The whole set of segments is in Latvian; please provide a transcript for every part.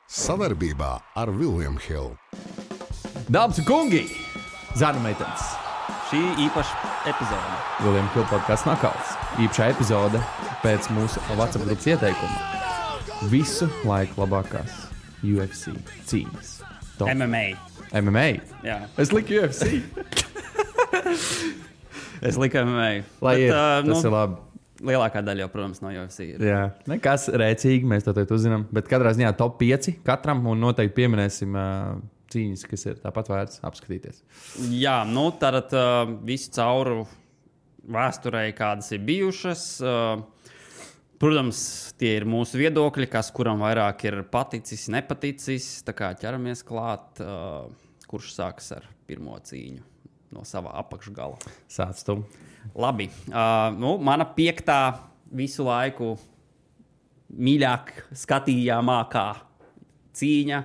Sadarbībā ar William Hill. Dāmas un kungi, zārnu meitenes. Šī īpaša epizode. William Hill podcasts Nakauts. Īpašā epizode pēc mūsu WhatsApp grupas ieteikuma. Visu laiku labākās UFC cīņas. Top. MMA? Jā. Es liku UFC. Es liku MMA. Lai bet, tas ir labi. Lielākā daļa jau, protams, no UFC ir. Jā, nekas rēcīgi, mēs to teikt uzzinām. Bet katrā ziņā top 5 katram un noteikti pieminēsim cīņas, kas ir tāpat vērts apskatīties. Jā, nu tad visu cauru vēsturei, kādas ir bijušas. Protams, tie ir mūsu viedokļi, kas kuram vairāk ir paticis, nepaticis. Tā kā ķeramies klāt, kurš sāks ar pirmo cīņu no sava apakšgala. Sāc tu. Labi. Mana 5. visu laiku mīļāk skatījāmākā cīņa.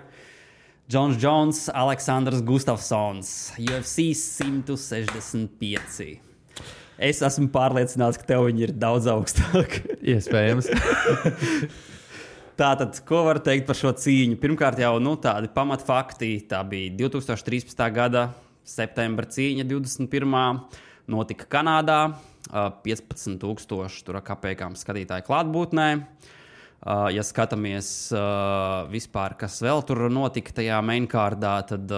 Džons Jones, Aleksandrs Gustafsons, UFC 165. Es esmu pārliecināts, ka tev viņi ir daudz augstāk. Iespējams. Tātad, ko var teikt par šo cīņu? Pirmkārt jau tādi pamatfakti. Tā bija 2013. gada septembra cīņa 21. Notika Kanādā, 15,000 tur kapekām skatītāju klātbūtnē. Ja skatāmies vispār, kas vēl tur notika tajā mainkārdā, tad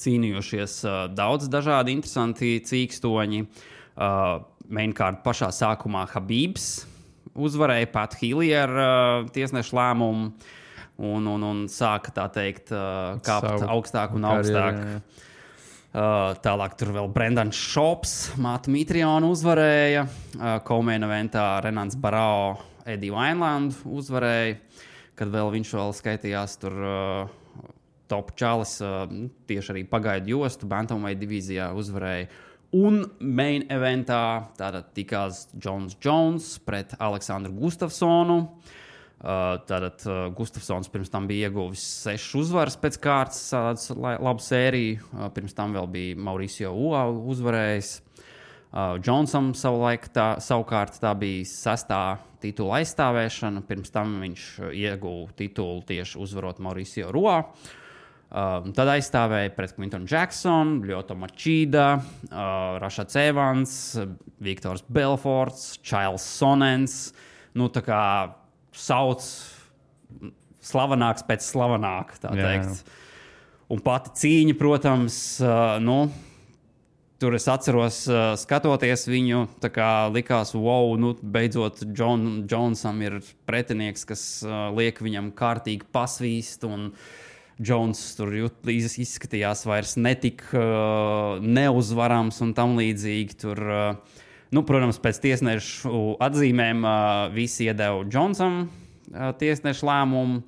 cīnījušies daudz dažādi interesanti cīkstoņi. Mainkārda pašā sākumā Habibs uzvarēja Pat Healy ar tiesnešu lēmumu un sāka, tā teikt, kāpt augstāk un augstāk. Jā. Tālāk tur vēl Brendans Šops, Mātu Mitrionu uzvarēja. Komeina eventā Renāns Barao, Eddie Wineland uzvarēja, kad vēl viņš vēl skaitījās tur top čalis, tieši arī pagaidu jostu, Bantamweight divīzijā uzvarēja. Un main eventā tātad tikās Džons Jones pret Aleksandru Gustafsonu. Tātad Gustafsons pirms tam bija ieguvis 6 uzvaras pēc kārtas, labu sēriju. Pirms tam vēl bija Mauricio Ua uzvarējis. Džonsam savukārt tā bija 6. titula aizstāvēšana. Pirms tam viņš ieguva titulu tieši uzvarot Mauricio Ua. Tad aizstāvēja pret Quinton Jackson, Lyoto Machida, Rashad Evans, Viktors Belforts, Charles Sonnens. Tā kā sauc slavenāks pēc slavenāka, tā teikt. Un pati cīņa, protams, tur es atceros, skatoties viņu, tā kā likās, wow, beidzot Džonsam ir pretinieks, kas liek viņam kārtīgi pasvīst, un Džons tur izskatījās vairs netik neuzvarams un tam līdzīgi tur. Protams, pēc tiesnešu atzīmēm visi iedeva Džonsam tiesnešu lēmumu.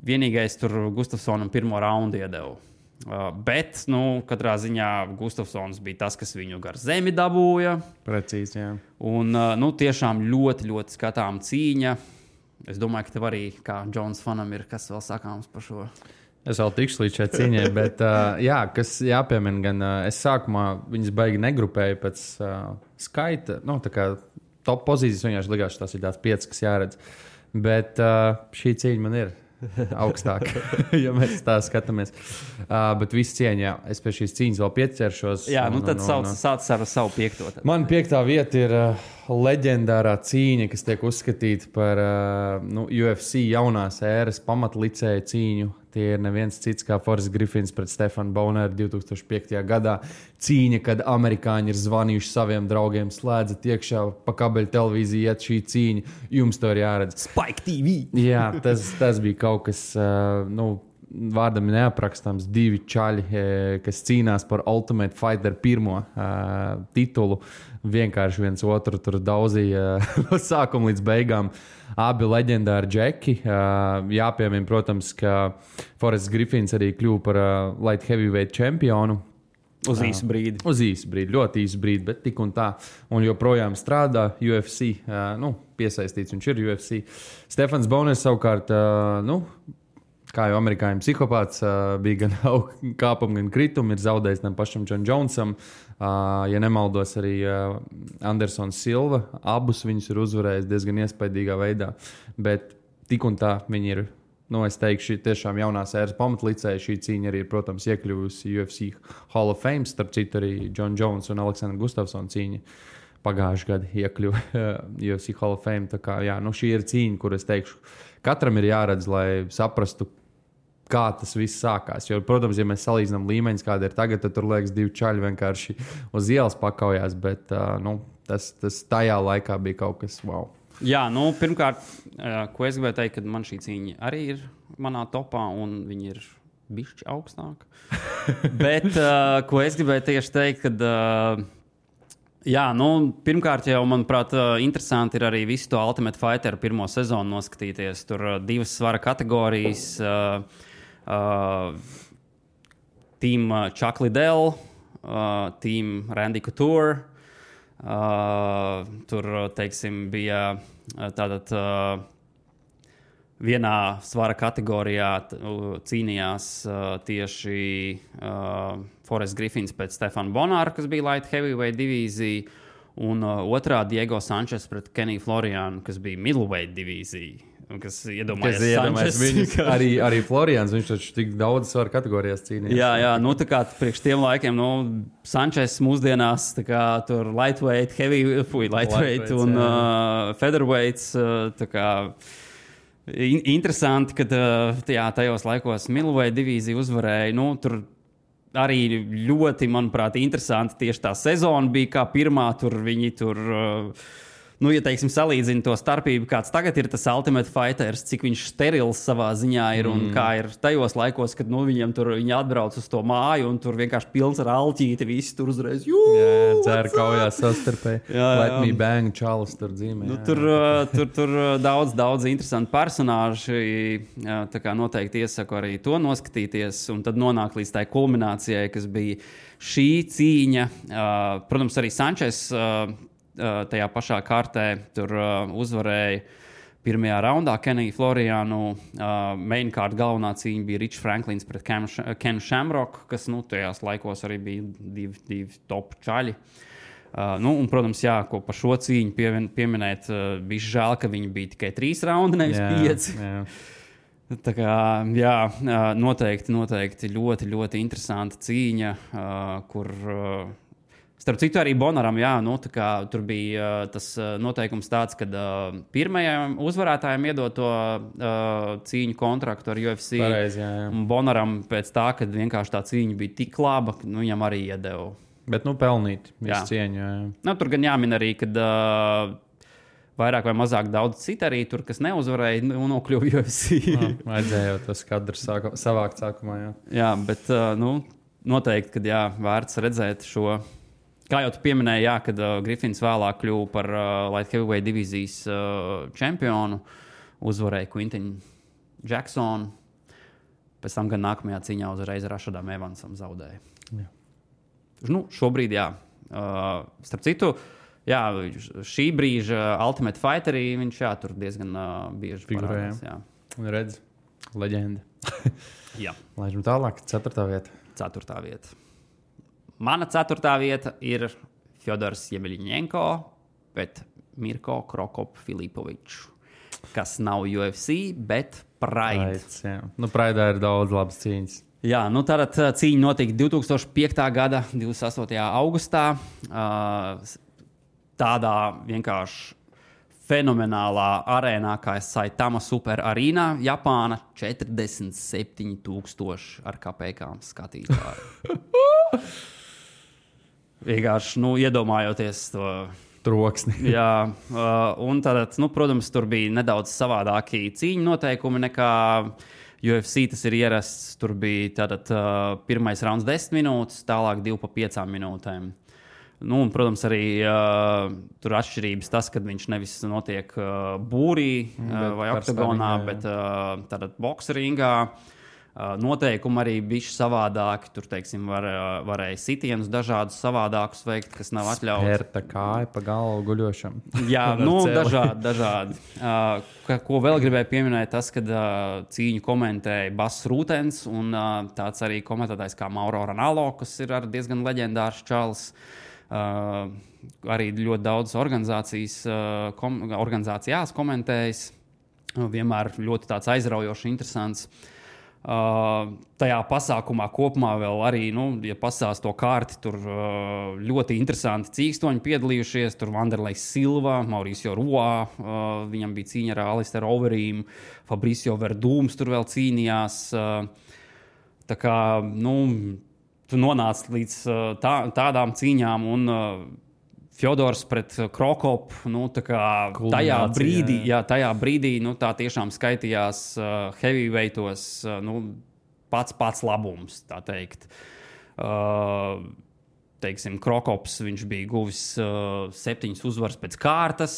Vienīgais tur Gustafsonam pirmo raundu iedeva. Bet, katrā ziņā Gustafsons bija tas, kas viņu gar zemi dabūja. Precīzi, jā. Un, tiešām ļoti, ļoti skatām cīņa. Es domāju, ka tev arī, kā Džons fanam, ir kas vēl sakāms par šo. Es vēl tikšu līdz šai cīņai, bet, kas jāpiemina, gan es sākumā viņas baigi negrupēju pēc skaita, tā kā top pozīcijas vienkārši likās, tās ir tās 5, kas jāredz, bet šī cīņa man ir augstāk, ja mēs tā skatāmies. Bet viss cieņā, es pie šīs cīņas vēl pieķeršos. Jā, tad sāc ar savu 5. Man 5. vieta ir leģendārā cīņa, kas tiek uzskatīta par UFC jaunās ēras pamatlicēja cīņu. Tie ir neviens cits kā Forrest Griffins pret Stefanu Boneru 2005. gadā. Cīņa, kad amerikāņi ir zvanījuši saviem draugiem, slēdzat iekšā pa kabeļu televīziju, iet šī cīņa, jums to ir jāredz. Spike TV! Jā, tas bija kaut kas, vārdam neaprakstāms, 2 čaļi, kas cīnās par Ultimate Fighter pirmo titulu. Vienkārši viens otru tur daudzīja no sākuma līdz beigām. Abi leģendāri džeki. Jāpiemina, protams, ka Forrests Griffins arī kļuva par light heavyweight čempionu. Uz īsu brīdi. Uz īsu brīdi, ļoti īsu brīdi, bet tik un tā. Un joprojām strādā UFC. Piesaistīts viņš ir UFC. Stefans Boners savukārt, kā jau amerikāņu psihopāts, bija gan kāpumi, gan kritumi, ir zaudējis tam pašam John Jonesam. Ja nemaldos, arī Andersons Silva, abus viņus ir uzvarējis diezgan iespaidīgā veidā. Bet tik un tā viņi ir. Es teikšu, tiešām jaunās ēras pamatlicēja. Šī cīņa arī, protams, iekļuvusi UFC Hall of Fame. Starp citu, arī John Jones un Aleksandra Gustafsona cīņa pagājušajā gadā iekļuva UFC Hall of Fame. Tā kā, jā, šī ir cīņa, kur es teikšu, katram ir jāredz, lai saprastu, kā tas viss sākās. Jo, protams, ja mēs salīdzinām līmeņus, kāda ir tagad, tad tur liekas divi čaļi vienkārši uz ielas pakaujās. Bet tas tajā laikā bija kaut kas wow. Jā, pirmkārt, ko es gribēju teikt, ka man šī cīņa arī ir manā topā, un viņi ir bišķi augstāk. Bet, ko es gribēju tieši teikt, kad, pirmkārt jau, manuprāt, interesanti ir arī visu to Ultimate Fighter pirmo sezonu noskatīties. Tur 2 svara kategorijas, Team Chuck Liddell, Team Randy Couture. Tur, teiksim, bija tātad vienā svara kategorijā cīnījās tieši Forrest Griffins pret Stefanu Bonāru, kas bija light heavyweight divīzija, un otrā Diego Sančes pret Keniju Florianu, kas bija middleweight divīzija. Kas iedomājas viņus, arī Florians, viņš taču tik daudz svaru kategorijās cīnījās. Jā, tā kā priekš tiem laikiem, Sančes mūsdienās, tā kā tur lightweight, lightweight un featherweights, tā kā interesanti, kad tajos laikos middleweight divīzija uzvarēja, tur arī ļoti, manuprāt, interesanti tieši tā sezona bija, kā pirmā, tur viņi tur... ja teiksim, salīdzina to starpību, kāds tagad ir tas Ultimate Fighters, cik viņš sterils savā ziņā ir un kā ir tajos laikos, kad viņam tur viņi atbrauc uz to māju un tur vienkārši pilns ar alķīti, visi tur uzreiz dzēra kaujās sastarpēji. Let me bang, čalis tur dzīmē. Tur daudz interesanti personāži, tā kā noteikti iesaku arī to noskatīties un tad nonāk līdz tai kulminācijai, kas bija šī cīņa. Protams, arī Sančes tajā pašā kārtē tur uzvarēja pirmajā raundā Keniju Florianu. Main card galvenā cīņa bija Rich Franklins pret Kenu Shamrock, kas tajās laikos arī bija divi top čaļi. Un, protams, ko par šo cīņu pieminēt, bija žēl, ka viņi bija tikai 3 raundi, nevis 5. Jā. Tā kā, noteikti ļoti, ļoti interesanta cīņa, kur... Starp citu, arī Bonaram, tur bija tas noteikums tāds, ka pirmajam uzvarētājam iedot to cīņu kontraktu ar UFC. Pareizi, jā. Un Bonaram pēc tā, kad vienkārši tā cīņa bija tik laba, ka viņam arī iedeva. Bet, pelnīt visu cieņu. Jā. Tur gan jāmin arī, kad vairāk vai mazāk daudz citu arī tur, kas neuzvarēja, nokļuva UFC. Vajadzēja jau tas kadrs savākt sākumā, jā. Jā, bet, noteikti, kad vērts redzēt šo... Kā jau tu pieminēji, kad Griffins vēlāk kļuva par light heavyweight divīzijas čempionu, uzvarēja Quintinu Jacksonu. Pēc tam gan nākamajā cīņā uzreiz Rashadam Evansam zaudēja. Jā. Šobrīd, starp citu, šī brīža Ultimate Fighterī viņš tur diezgan bieži parādās. Redz, leģenda. Jā. Laižam tālāk, 4. vieta. 4. vieta. Mana 4. vieta ir Fjodors Jemeļņenko pret Mirko Krokop-Filipoviču, kas nav UFC, bet Pride. Pride'ā ir daudz labas cīņas. Jā, tātad cīņa notika 2005. gada 28. augustā. Tādā vienkārši fenomenālā arēnā, kā Saitama Super Arena, Japāna, 47,000 ar kapekām skatītāju. Vienkārši, iedomājoties to troksni. Jā, un tad, protams, tur bija nedaudz savādāki cīņu noteikumi nekā UFC. Tas ir ierasts. Tur bija tātad pirmais rauns 10 minūtes, tālāk 2 pa 5 minūtēm. Un, protams, arī tur atšķirības tas, kad viņš nevis notiek būrī vai oktagonā, bet tātad boksringā. Noteikumi arī bišķi savādāki. Tur, teiksim, varēja sitienus dažādus savādākus veikt, kas nav atļauts. Spērta kāja pa galvu guļošam. Jā, dažādi. Ko vēl gribēju pieminēt, tas, kad cīņu komentēja Bass Rūtens un tāds arī komentētājs kā Mauro Ranallo, kas ir diezgan leģendārs čalis. Arī ļoti daudz organizācijās komentējis. vienmēr ļoti tāds aizraujošs, interesants. Tajā pasākumā kopumā vēl arī, ja pasās to kārti, tur ļoti interesanti cīkstoņi piedalījušies. Tur Vanderlejs Silva, Mauricio Roa, viņam bija cīņa ar Alisteru Overeem, Fabricio Verdūms tur vēl cīnījās. Tā kā, tu nonāc līdz tādām cīņām un Fjodors pret Krokopu, tajā brīdī, tā tiešām skaitījās heavyweightos, pats labums, tā teikt. Teiksim, Krokops, viņš bija guvis 7 uzvaras pēc kārtas.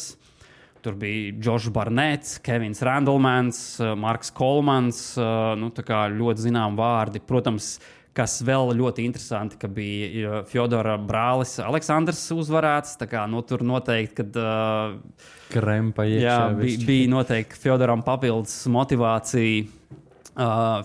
Tur bija Džošs Barnets, Kevins Randlemans, Marks Kolmans, tā kā ļoti zinām vārdi. Protams, kas vēl ļoti interesanti, ka bija Fjodora brālis Aleksandrs uzvarēts. Tā kā, tur noteikti, kad krempa iekšā. Bija noteikti Fjodoram papildus motivācija.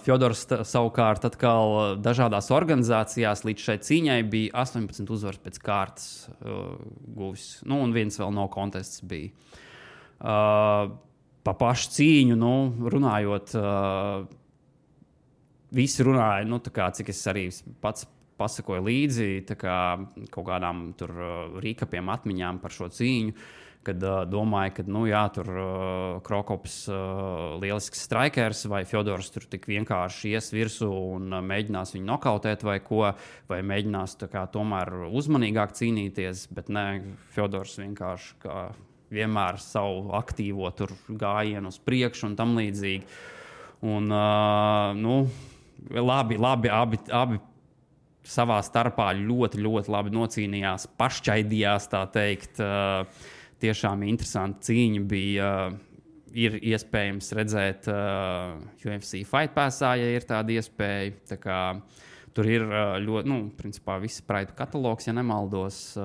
Fjodors savukārt atkal dažādās organizācijās līdz šai cīņai bija 18 uzvaras pēc kārtas guvis. Un viens vēl no kontests bija. Pa pašu cīņu, runājot, visi runāja, cik es arī pats pasakoju līdzi, kaut kādām tur rīkapiem atmiņām par šo cīņu, kad domāju, ka, tur Krokops lielisks strikers, vai Fjodors tur tik vienkārši ies virsū un mēģinās viņu nokautēt vai ko, vai mēģinās tomēr uzmanīgāk cīnīties, bet nē, Fjodors vienkārši kā vienmēr savu aktīvo tur gājienu uz priekšu un tam līdzīgi. Un, labi, abi savā starpā ļoti, ļoti labi nocīnījās, pašķaidījās, tā teikt. Tiešām interesanti cīņa bija. Ir iespējams redzēt UFC Fight Passā, ja ir tāda iespēja. Tā kā, tur ir ļoti, principā viss Pride katalogs, ja nemaldos.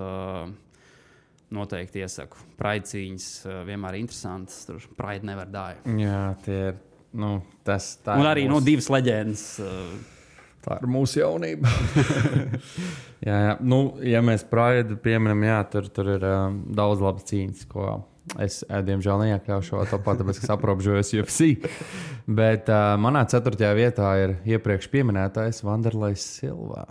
Noteikti iesaku. Pride cīņas vienmēr interesantas. Tur Pride never die. Jā, tie ir. Tā un arī mūsu... 2 leģendas. Tā ir mūsu jaunība. jā. Ja mēs Pride pieminam, tur ir daudz labas cīņas, ko es, diemžēl, neiekļaušu šo topā, tāpēc, ka aprobežojos UFC. Bet manā 4. vietā ir iepriekš pieminētais Vanderlejs Silva.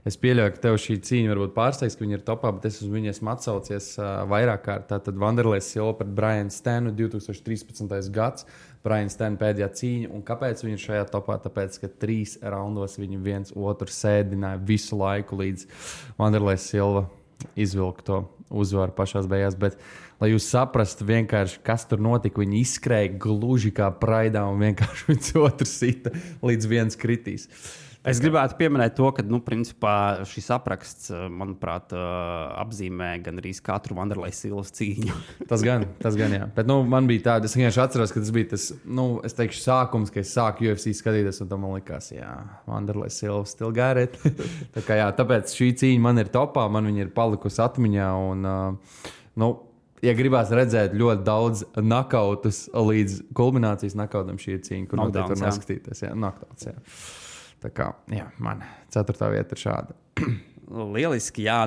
Es pieļauju, ka tev šī cīņa varbūt pārsteigs, ka viņi ir topā, bet es uz viņu esmu atsaucies vairāk kārt. Tātad Vanderlejs Silva pret Brian Stanu 2013. gads. Brian Stanu pēdējā cīņa. Un kāpēc viņi ir šajā topā? Tāpēc, ka 3 raundos viņi viens otru sēdināja visu laiku, līdz Vanderlejs Silva izvilka to uzvaru pašās beigās. Bet, lai jūs saprastu vienkārši, kas tur notika, viņi izskrēja gluži kā Praidā un vienkārši viens otru sita, līdz viens kritīs. Es gribētu pieminēt to, ka, principā šis apraksts, manuprāt, apzīmē gan arī katru Vanderlejs Silvas cīņu. Tas gan, jā. Bet, man bija tāda, es vienkārši atceros, ka tas bija tas, es teikšu, sākums, ka es sāku UFC skatīties, un tam man likās, Vanderlejs Silva still got it. Tā kā, tāpēc šī cīņa man ir topā, man viņa ir palikusi atmiņā, un, ja gribās redzēt ļoti daudz nakautus līdz kulminācijas nakautam šī cīņa, kur noteikti var noskatīties. Knockdowns, jā. Tā kā, man 4. vieta ir šāda. Lieliski, jā.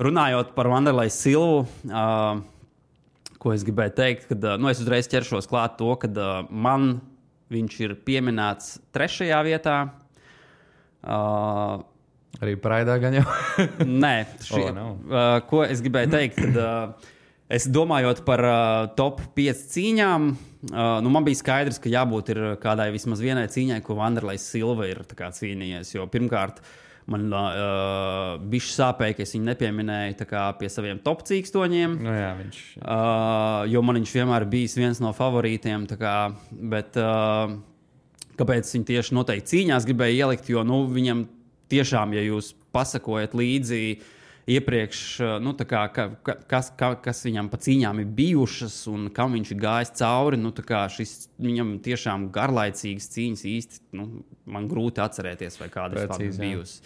Runājot par Vanderlejs Silvu, ko es gribēju teikt, kad es uzreiz ķeršos klāt to, kad man viņš ir pieminēts 3. vietā. Arī Praidā gan jau? Nē, ko es gribēju teikt, kad es domājot par top 5 cīņām, man bija skaidrs, ka jābūt ir kādai vismaz vienai cīņai, ko Vanderlejs Silva ir cīnījies. Jo pirmkārt, man bišķi sāpēja, ka es viņu nepieminēju pie saviem top cīkstoņiem. Jo man viņš vienmēr bijis viens no favorītiem. Bet kāpēc viņi tieši noteikti cīņās gribēja ielikt? Jo viņam tiešām, ja jūs pasakojat līdzi iepriekš, kas viņam pa cīņām ir bijušas un kam viņš ir gājis cauri, šis viņam tiešām garlaicīgas cīņas īsti, man grūti atcerēties, vai kādas tādas bijusi.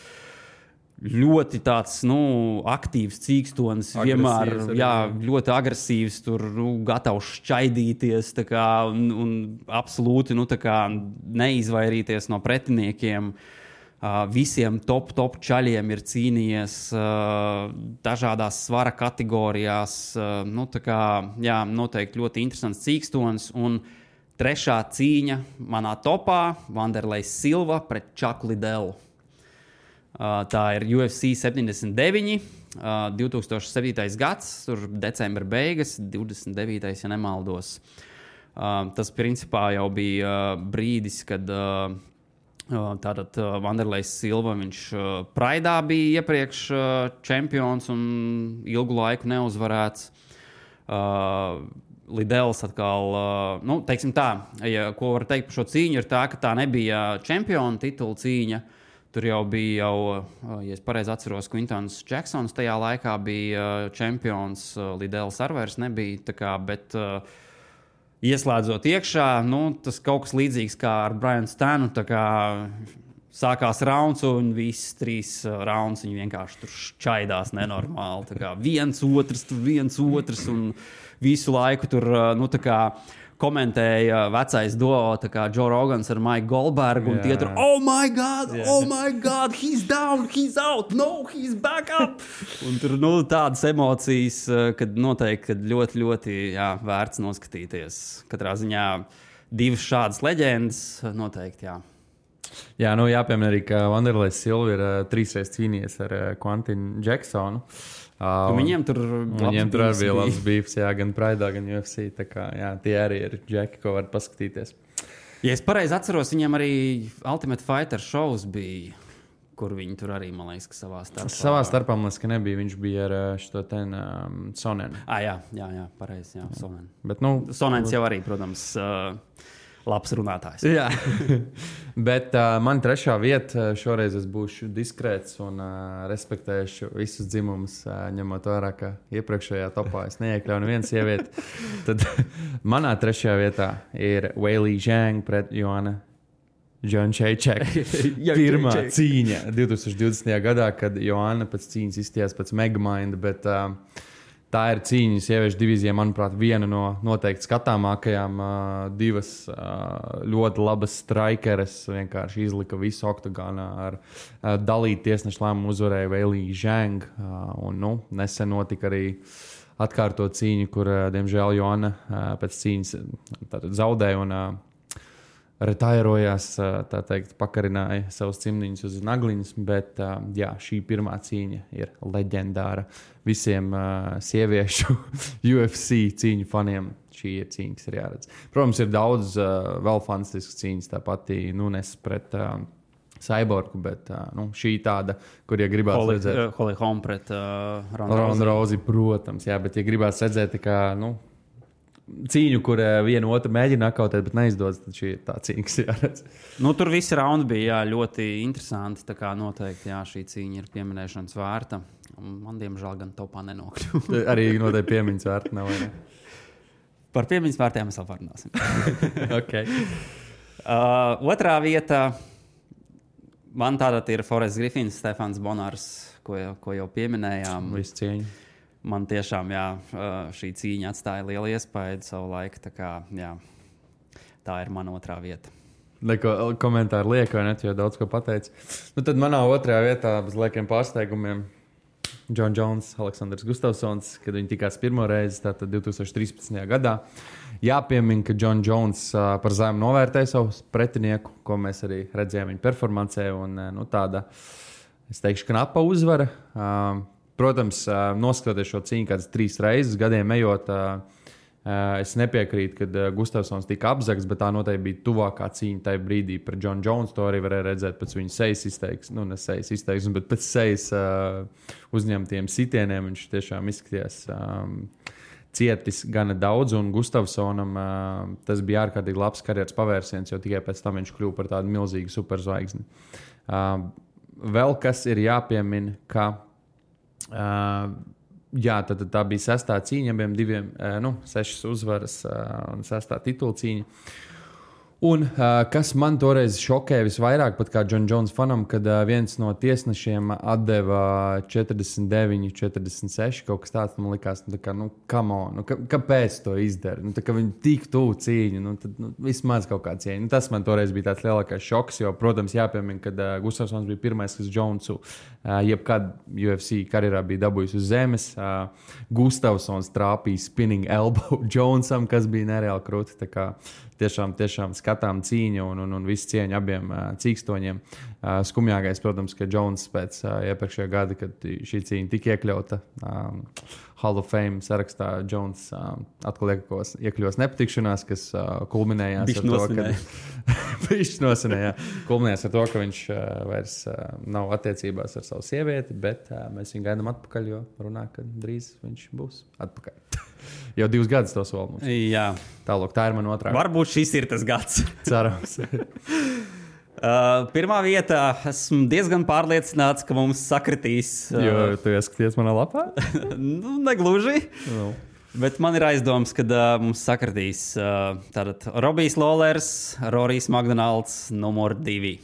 Ļoti tāds, aktīvs cīkstonis, vienmēr, ļoti agresīvs, tur, gatavs šķaidīties, un absolūti, neizvairīties no pretiniekiem. Visiem top čaļiem ir cīnījies dažādās svara kategorijās. Tā kā, jā, noteikti ļoti interesants cīkstonis. Un trešā cīņa manā topā - Wanderlejs Silva pret Chuck Liddell. Tā ir UFC 79, 2007. gads, tur decembra beigas, 29. ja nemaldos. Tas principā jau bija brīdis, kad tātad Wanderlejs Silva, viņš Praidā bija iepriekš čempions un ilgu laiku neuzvarēts. Liddells atkal, teiksim tā, ko var teikt par šo cīņu, ir tā, ka tā nebija čempiona titula cīņa. Tur jau bija, ja es pareizi atceros, Quintons Jacksons tajā laikā bija čempions, Liddells ar vairs nebija, tā kā, bet ieslēdzot iekšā, tas kaut kas līdzīgs kā ar Brianu Stanu, tā kā sākās rauns un viss 3 rauns, viņi vienkārši tur šķaidās nenormāli, tā kā viens otrs un visu laiku tur, tā kā komentēja vecais duo, tā kā Joe Rogans ar Mike Goldbergu, un tie tur, oh my God, he's down, he's out, no, he's back up. Un tur, tādas emocijas, kad noteikti, kad ļoti, ļoti, vērts noskatīties. Katrā ziņā 2 šādas leģendas, noteikti, jā. Jā, jāpiemina arī, ka Wanderlejs Silva ir 3 reizes cīnījies ar Quintonu Jacksonu. Viņiem tur bija labs beefs, gan Praidā, gan UFC. Tā kā, tie arī ir džeki, ko var paskatīties. Ja es pareizi atceros, viņiem arī Ultimate Fighter shows bija, kur viņi tur arī, man liekas, ka savā starpā. Savā starpā, man liekas, ka nebija. Viņš bija ar šo Sonenu. Jā, pareizi, Sonen. Bet, Sonens jau arī, protams, labs runātājs. Jā, bet man trešā vieta šoreiz es būšu diskrēts un respektēšu visus dzimumus, ņemot vērā, ka iepriekšējā topā es neiekļauju nevienu sievieti. Tad manā trešajā vietā ir Weili Zhang pret Joanna Jędrzejczyk. Pirmā cīņa 2020. gadā, kad Joanna pēc cīņas izstījās pēc Megamind, bet tā ir cīņa sieviešu divīzijā, manuprāt, viena no noteikti skatāmākajām. 2 ļoti labas strikeres vienkārši izlika visu oktagānā ar dalītu tiesnešu lēmumu uzvarēja Weili Zhang. Un, nesen notika arī atkārtot cīņu, kur, diemžēl, Joanna pēc cīņas zaudēja un retairojās, tā teikt, pakarināja savus cimdiņus uz nagliņas, bet šī pirmā cīņa ir leģendāra visiem sieviešu UFC cīņu faniem. Šī ir cīņa, kas ir jāredz. Protams, ir daudz vēl fantastiskas cīņas, tā pati Nunes pret Cyborgu, bet šī tāda, kur, ja gribās redzēt... Holly Holm pret Ronda Rousey, protams, bet, ja gribās redzēt, tā kā, cīņu, kur viena otru mēģina nakautēt, bet neizdodas, tad šī ir tā cīņa, kas jāredz. Tur visi raundi bija ļoti interesanti, tā kā noteikti šī cīņa ir pieminēšanas vērta. Man, diemžēl, gan topā nenokļuva. Arī noteikti piemiņas vērta nav, vai ne? Par piemiņas vērtiem mēs vēl parunāsim. Okay. Otrā vieta man tātad ir Forests Griffins, Stefans Bonārs, ko jau pieminējām. Visu cieņu. Man tiešām, šī cīņa atstāja lielu iespaidu savu laiku, tā kā, tā ir mana otrā vieta. Neko komentāru liek, vai ne, jo daudz ko pateici. Tad manā otrajā vietā bez liekiem pārsteigumiem Jon Jones, Aleksandrs Gustafsons, kad viņi tikās pirmo reizi, tātad 2013. gadā. Jāpiemina, ka Jon Jones par zemu novērtēja savu pretinieku, ko mēs arī redzējām viņa performancē, un tāda, es teikšu, knapa uzvara. Protams, noskatoties šo cīņu kādas 3 reizes, gadiem ejot, es nepiekrītu, kad Gustafsons tika apzagts, bet tā noteikti bija tuvākā cīņa tajā brīdī par Jon Jones. To arī varēja redzēt pēc viņa sejas izteiksmes, ne sejas izteiksmes, bet pēc sejas uzņemtiem sitieniem. Viņš tiešām izskatījās cietis gana daudz, un Gustafsonam tas bija ārkārtīgi labs karjeras pavērsiens, jo tikai pēc tam viņš kļuva par tādu milzīgu superzvaigzni. Vēl kas ir jāpiemina, ka tad tā bija 6. cīņa, abiem 6 uzvaras un 6. titula cīņa. Un kas man toreiz šokēja visvairāk, pat kā John Jones fanam, kad viens no tiesnešiem atdeva 49, 46, kaut kas tāds, man likās, nu, tā kā, nu, come on, kāpēc to izdara? Nu, tā kā viņi tik tuvu cīņu, nu, tad vismaz kaut kā cieņa. Nu, tas man toreiz bija tāds lielākais šoks, jo, protams, jāpiemina, kad Gustafsons bija pirmais, kas Jonesu jebkad UFC karjerā bija dabūjis uz zemes. Gustafsons trāpīja spinning elbow Jonesam, kas bija nereāli krūti. Tā kā tiešām skatām cīņu un visu cieņu abiem cīkstoņiem. Skumjākais, protams, ka Jones pēc iepriekšējā gada, kad šī cīņa tika iekļauta Hall of Fame sarakstā, Jones atkal iekļos nepatikšanās, kas kulminējās ar to, kulminējās ar to, ka viņš vairs nav attiecībās ar savu sievieti, bet mēs viņu gaidām atpakaļ, jo runā, ka drīz viņš būs atpakaļ. Jau 2 gadus to sola mums. Jā. Tālāk, tā ir man otrā. Varbūt šis ir tas gads. Cerams. Pirmā vietā esmu diezgan pārliecināts, ka mums sakritīs. Jo tu ieskaties manā lapā? Nu, negluži. No. Bet man ir aizdoms, ka mums sakritīs tātad Robijs Lawlers, Rorijs Makdonalds, numur 2.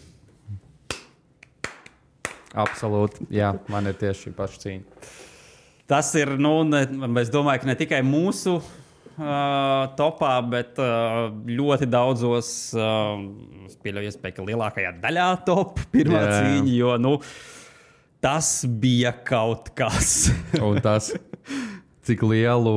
Absolūti. Jā, man ir tieši šī paša cīņa. Tas ir, es domāju, ka ne tikai mūsu topā, bet ļoti daudzos, es pieļauju iespēju, ka lielākajā daļā top pirmā cīņa, jo, tas bija kaut kas. Un tas, cik lielu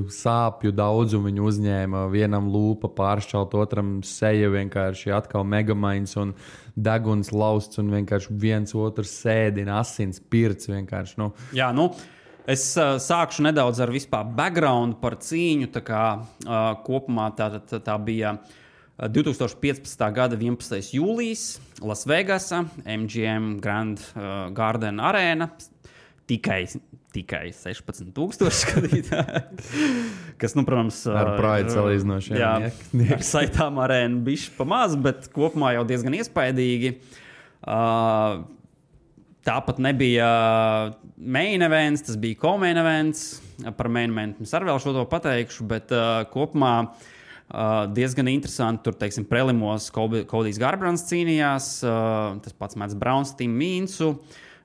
sāpju daudzumu viņi uzņēma, vienam lūpa pāršķelt, otram seja vienkārši atkal megamains un deguns lausts un vienkārši viens otru sēdina, asins pirts vienkārši, Jā, es sākšu nedaudz ar vispār background par cīņu. Tā kā kopumā tā bija 2015. gada 11. jūlijas Lasvegasa, MGM Grand Garden Arena. Tikai 16,000 skatītāji. Kas, protams, ar prāju salīdzinoši. Jā, ar saitām arēnu bišķi pamaz, bet kopumā jau diezgan iespaidīgi. Tāpat nebija main events, tas bija co-main events. Par main event es arī vēl šo to pateikšu, bet kopumā diezgan interesanti. Tur, teiksim, prelimos Kodijs Garbrands cīnījās, tas pats Mats Brauns, Tim Mīnsu.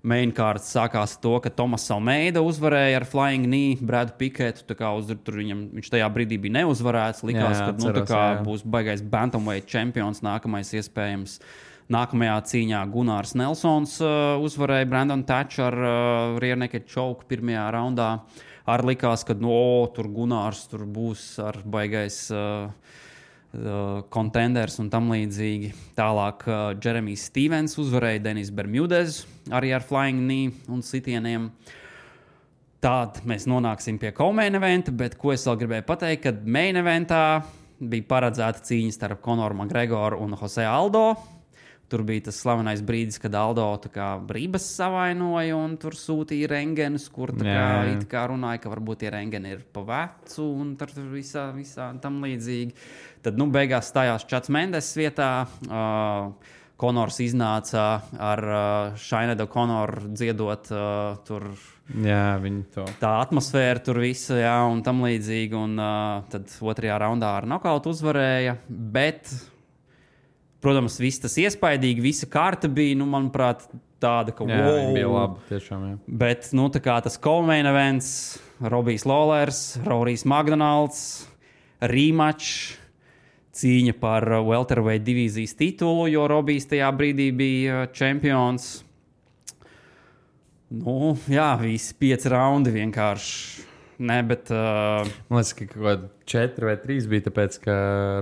Main kārts sākās ar to, ka Tomas Almeida uzvarēja ar Flying Knee Bradu Piketu. Viņš tajā brīdī bija neuzvarēts. Likās, ka būs baigais bantamweight čempions nākamais iespējams. Nākamajā cīņā Gunārs Nelsons uzvarēja Brandon Thatch ar rear naked choke pirmajā raundā. Arī likās, ka tur Gunārs tur būs ar baigais contenders un tam līdzīgi. Tālāk Jeremijs Stevens uzvarēja Denis Bermudez arī ar flying knee un sitieniem. Tād mēs nonāksim pie co-main eventa, bet ko es vēl gribēju pateikt, kad main eventā bija paredzēta cīņa starp Conoru McGregoru un Jose Aldo. Tur bija tas slavenais brīdis, kad Aldo brības savainoja un tur sūtīja rengenus, kur it kā runāja, ka varbūt tie rengeni ir pa vecu un tur visā tam līdzīgi. Tad beigās stājās Čats Mendes vietā. Konors iznāca ar Shainedu Konoru dziedot tur. Jā, viņi to. Tā atmosfēra tur visa, un tam līdzīgi. Un tad otrajā raundā ar nokautu uzvarēja, bet... Protams, viss tas iespaidīgi, visa kārta bija, manuprāt, tāda, ka wow. Bija labi, tiešām, jā. Bet, tas co-main events, Robijs Lawlers, Rorijs Makdonalds, rematch, cīņa par welterweight divīzijas titulu, jo Robijs tajā brīdī bija čempions. Visi 5 raundi vienkārši. Nē, bet... Man liekas, ka kaut kādi 4 vai 3 bija, tāpēc, ka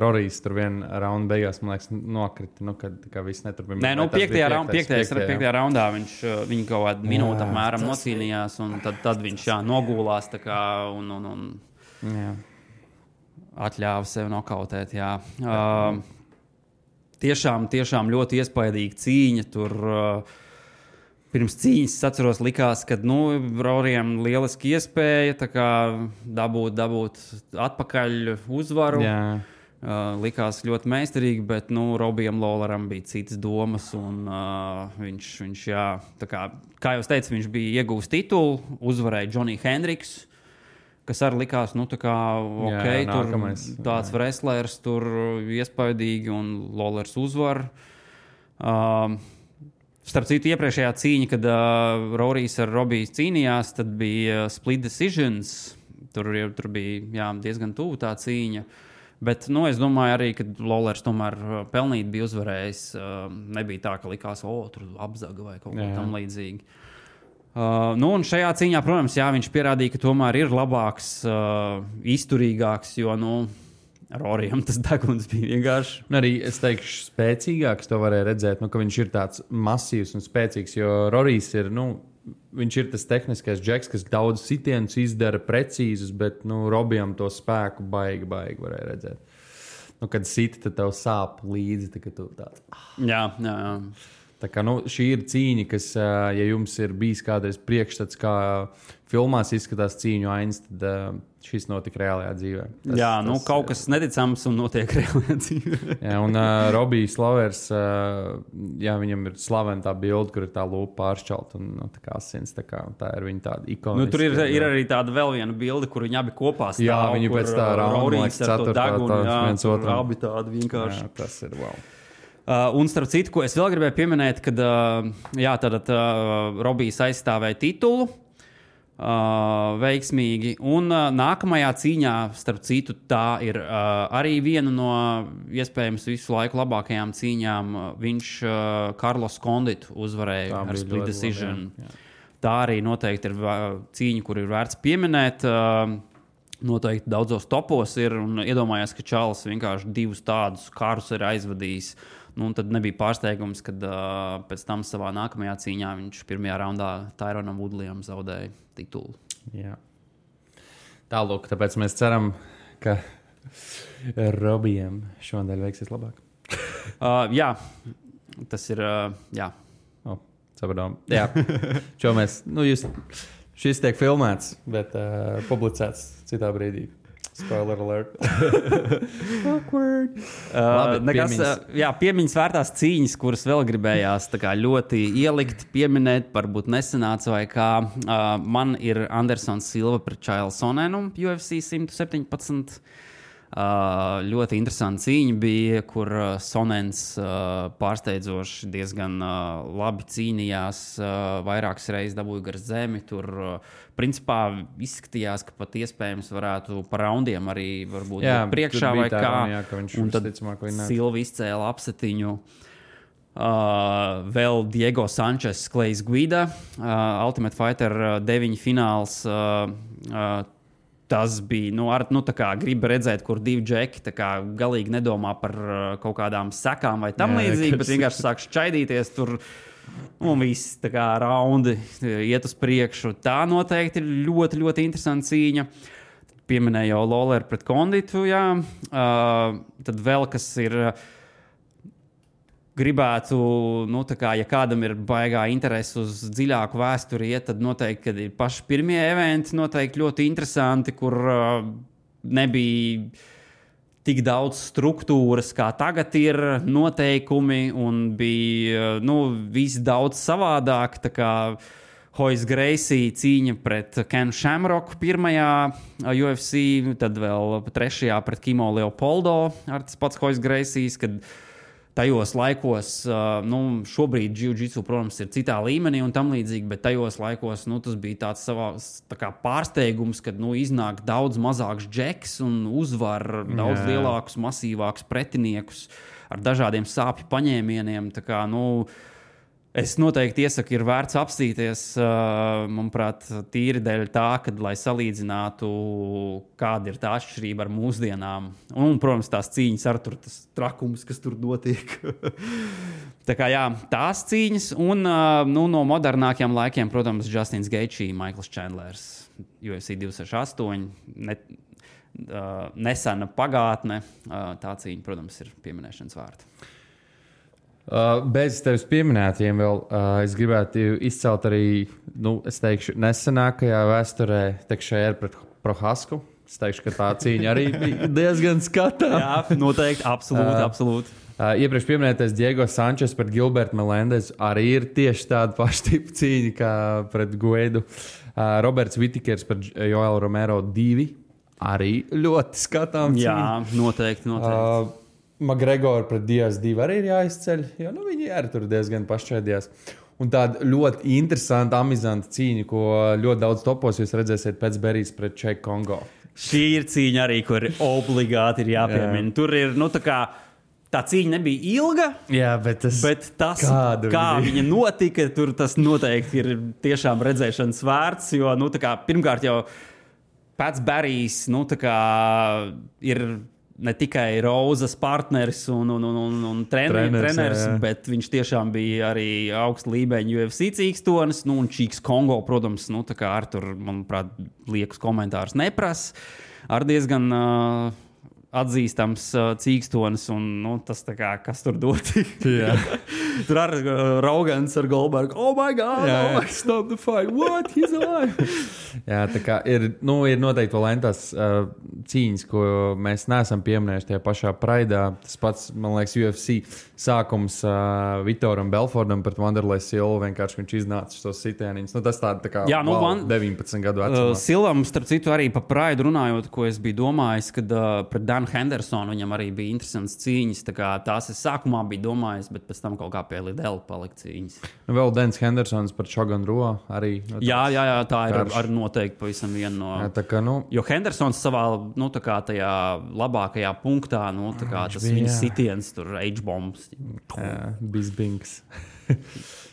Rorijs tur vienu raundu beigās, man liekas, nokrita, kad viss neturpina. Nē, 5. raundā viņi kaut kādu minūtu apmēram nocīnījās, un tad viņš nogulās tā kā un atļāva sev nokautēt, jā. Tiešām ļoti iespaidīga cīņa tur... Pirms cīņas, es atceros, likās, ka Rorijam lieliski iespēja dabūt atpakaļ uzvaru. Likās ļoti meistarīgi, bet Robijam Lawleram bija citas domas. Un, viņš kā jau teicu, viņš bija ieguvis titulu, uzvarēja Johnny Hendricks, kas arī likās, nu, tā kā, ok, jā, tur nākamais, tāds wrestlers, tur iespaidīgi un Lawlers uzvar. Starp citu, iepriekšējā cīņa, kad Rorijs ar Robiju cīnījās, tad bija split decisions. Tur bija diezgan tuvu tā cīņa. Bet es domāju arī, ka Lawlers tomēr pelnīt bija uzvarējis. Nebija tā, ka likās, tur apzaga vai kaut kā tam līdzīgi. Un šajā cīņā, protams, viņš pierādīja, ka tomēr ir labāks, izturīgāks, jo, Rorijam tas deguns bija vienkārši. Arī es teikšu, spēcīgāks to varēja redzēt, ka viņš ir tāds masīvs un spēcīgs, jo Rorijs ir, viņš ir tas tehniskais džeks, kas daudz sitienus izdara precīzus, bet, Robijam to spēku baigi varēja redzēt. Kad siti, tad tev sāp līdzi, tad tu tāds. Jā. Tā kā, šī ir cīņa, kas, ja jums ir bijis kādreiz priekšstats, kā filmās izskatās cīņu ainas, tad šis notika reālajā dzīvē. Kaut kas neticams un notiek reālajā dzīvē. Jā, un Robijs Lawlers, viņam ir slavena tā bilde, kur ir tā lūpa pāršķelta un tā kā asins, tā ir viņa tāda ikoniska. Tur ir arī tāda vēl viena bilde, kur viņi abi kopā stāv. Jā, viņi pēc tā Rorijs ar to degunu, viens otram. Abi tādi vienkārši. Jā, tas ir wow. Un starp citu, ko es vēl gribēju pieminēt, kad Robijs aizstāvēja titulu veiksmīgi. Un nākamajā cīņā, starp citu, tā ir arī viena no iespējams visu laiku labākajām cīņām. Viņš Carlos Conditu uzvarēja ar split decision. Tā arī noteikti ir cīņa, kur ir vērts pieminēt. Noteikti daudzos topos ir un iedomājās, ka Čāls vienkārši divus tādus karus ir aizvadījis. Tad nebija pārsteigums, kad pēc tam savā nākamajā cīņā viņš pirmajā raundā Tyronam Woodleyam zaudēja titulu. Jā. Tālūk, tāpēc mēs ceram, ka Robijam šodien veiksies labāk. Jā, tas ir, jā. Sapratām. Jā, šo mēs, šis tiek filmēts, bet publicēts citā brīdī. Spoiler alert. Awkward. Piemiņas vērtās cīņas, kuras vēl gribējās ļoti ielikt, pieminēt, varbūt nesanāca vai kā. Man ir Andersons Silva pret Chael Sonnenu UFC 117. Ļoti interesanta cīņa bija, kur Sonnens pārsteidzoši diezgan labi cīnījās, vairākas reizes dabūja gar zemi. Tur principā izskatījās, ka pat iespējams varētu par raundiem arī varbūt priekšā vai kā. Un tad Silva izcēla apsetiņu. Vēl Diego Sančes, Klejs Guida, Ultimate Fighter 9 fināls. Tas bija, tā kā griba redzēt, kur divi džeki tā kā galīgi nedomā par kaut kādām sekām vai tam līdzīgi, bet vienkārši sāk šķaidīties tur un viss tā kā raundi iet uz priekšu. Tā noteikti ir ļoti, ļoti interesanta cīņa. Pieminēju jau Lawler pret Conditu, jā. Tad vēl kas ir... Gribētu, ja kādam ir baigā interese uz dziļāku vēsturi, tad noteikti, kad ir paši pirmie eventi, noteikti ļoti interesanti, kur nebija tik daudz struktūras, kā tagad ir noteikumi, un bija, viss daudz savādāk, tā kā Royce Gracie cīņa pret Kenu Shamrocku pirmajā UFC, tad vēl trešajā pret Kimo Leopoldo ar tas pats Royce Gracies, kad tajos laikos, šobrīd jiu-jitsu, protams, ir citā līmenī un tam līdzīgi, bet tajos laikos, tas bija tāds tā kā pārsteigums, kad, iznāk daudz mazāks džeks un uzvar daudz lielākus, masīvākus pretiniekus ar dažādiem sāpju paņēmieniem. Tā kā, es noteikti iesaku, ir vērts apstīties, manuprāt, tīri dēļ tā, kad, lai salīdzinātu, kāda ir tā atšķirība ar mūsdienām. Un, protams, tās cīņas ar tur, tas trakums, kas tur notiek. Tā kā, tās cīņas. Un, no modernākiem laikiem, protams, Justins Gaethje, Michaels Chandlers, UFC 268, nesena pagātne. Tā cīņa, protams, ir pieminēšanas vērta. Bez tevis pieminētiem vēl es gribētu izcelt arī, es teikšu, nesenākajā vēsturē Tekšēra pret Prohasku. Es teikšu, ka tā cīņa arī bija diezgan skatām. Jā, noteikti, absolūti. Iepriekš pieminētais Diego Sančes pret Gilbertu Melendez arī ir tieši tāda paša tipa cīņa kā pret Guidu. Roberts Vitikers par Joelu Romero 2. Arī ļoti skatām. Jā, noteikti. McGregor pret Diaz 2 arī ir jāizceļ, jo viņi arī tur diezgan pašķēdījās. Un tāda ļoti interesanta, amizanta cīņa, ko ļoti daudz topos jūs redzēsiet pēc Berijas pret Čeku Kongo. Šī ir cīņa arī, kur obligāti ir jāpiemina. Tur ir, tā cīņa nebija ilga, bet tas, kā viņa notika, tur tas noteikti ir tiešām redzēšanas vērts, jo, pirmkārt jau pēc Berijs, ir ne tikai Rozas partneris un treneris, bet viņš tiešām bija arī augsta līmeņa UFC cīkstonis, un Čīks Kongo, protams, ar tur, manuprāt, liekas komentārus neprasa, ar diezgan atzīstams cīkstonis, un tas tā kā, kas tur doti. Tur ar Rogans ar Goldbergu, oh my God, stop the fight, what, he's alive. Jā, tā kā ir noteikti vēl entās cīņas, ko mēs neesam pieminējuši tajā pašā Praidā. Tas pats, man liekas, UFC sākums Vitoram Belfordam pret Wanderlei Silvu, vienkārši viņš iznāca šos sitieniņus. Tas tā kā 19 gadu vecumā. Silvam, starp citu, arī pa Praidu runājot, ko es biju domājis, kad pret Danu Hendersonu viņam arī bija interesants cīņas. Tā kā tās es sākumā biju domājis, bet pēc tam kaut kā pie Lidela palika cīņas. Vēl Dans Hendersons par Shogun Ro arī. Jā, tā ir ar noteikti pavisam viena no... Jā, tā kā, Jo Hendersons savā, tā kā tajā labākajā punktā, tā kā tas viņa sitiens, tur H-bombs. Jā, bizbings.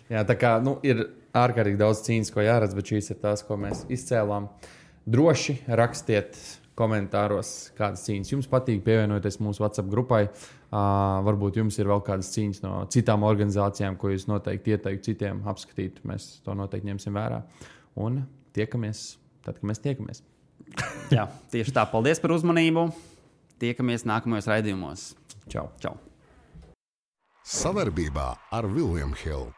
Jā, tā kā, ir ārkārtīgi daudz cīņas, ko jāredz, bet šīs ir tās, ko mēs izcēlām. Droši rakstiet komentāros, kādas cīņas jums patīk, pievienoties mūsu WhatsApp grupai. Varbūt jums ir vēl kādas cīņas no citām organizācijām, ko jūs noteikti ieteiktu citiem apskatīt. Mēs to noteikti ņemsim vērā. Un tiekamies tad, kad mēs tiekamies. Jā, tieši tā. Paldies par uzmanību. Tiekamies nākamajos raidījumos. Čau. Čau. Savarbībā ar William Hill.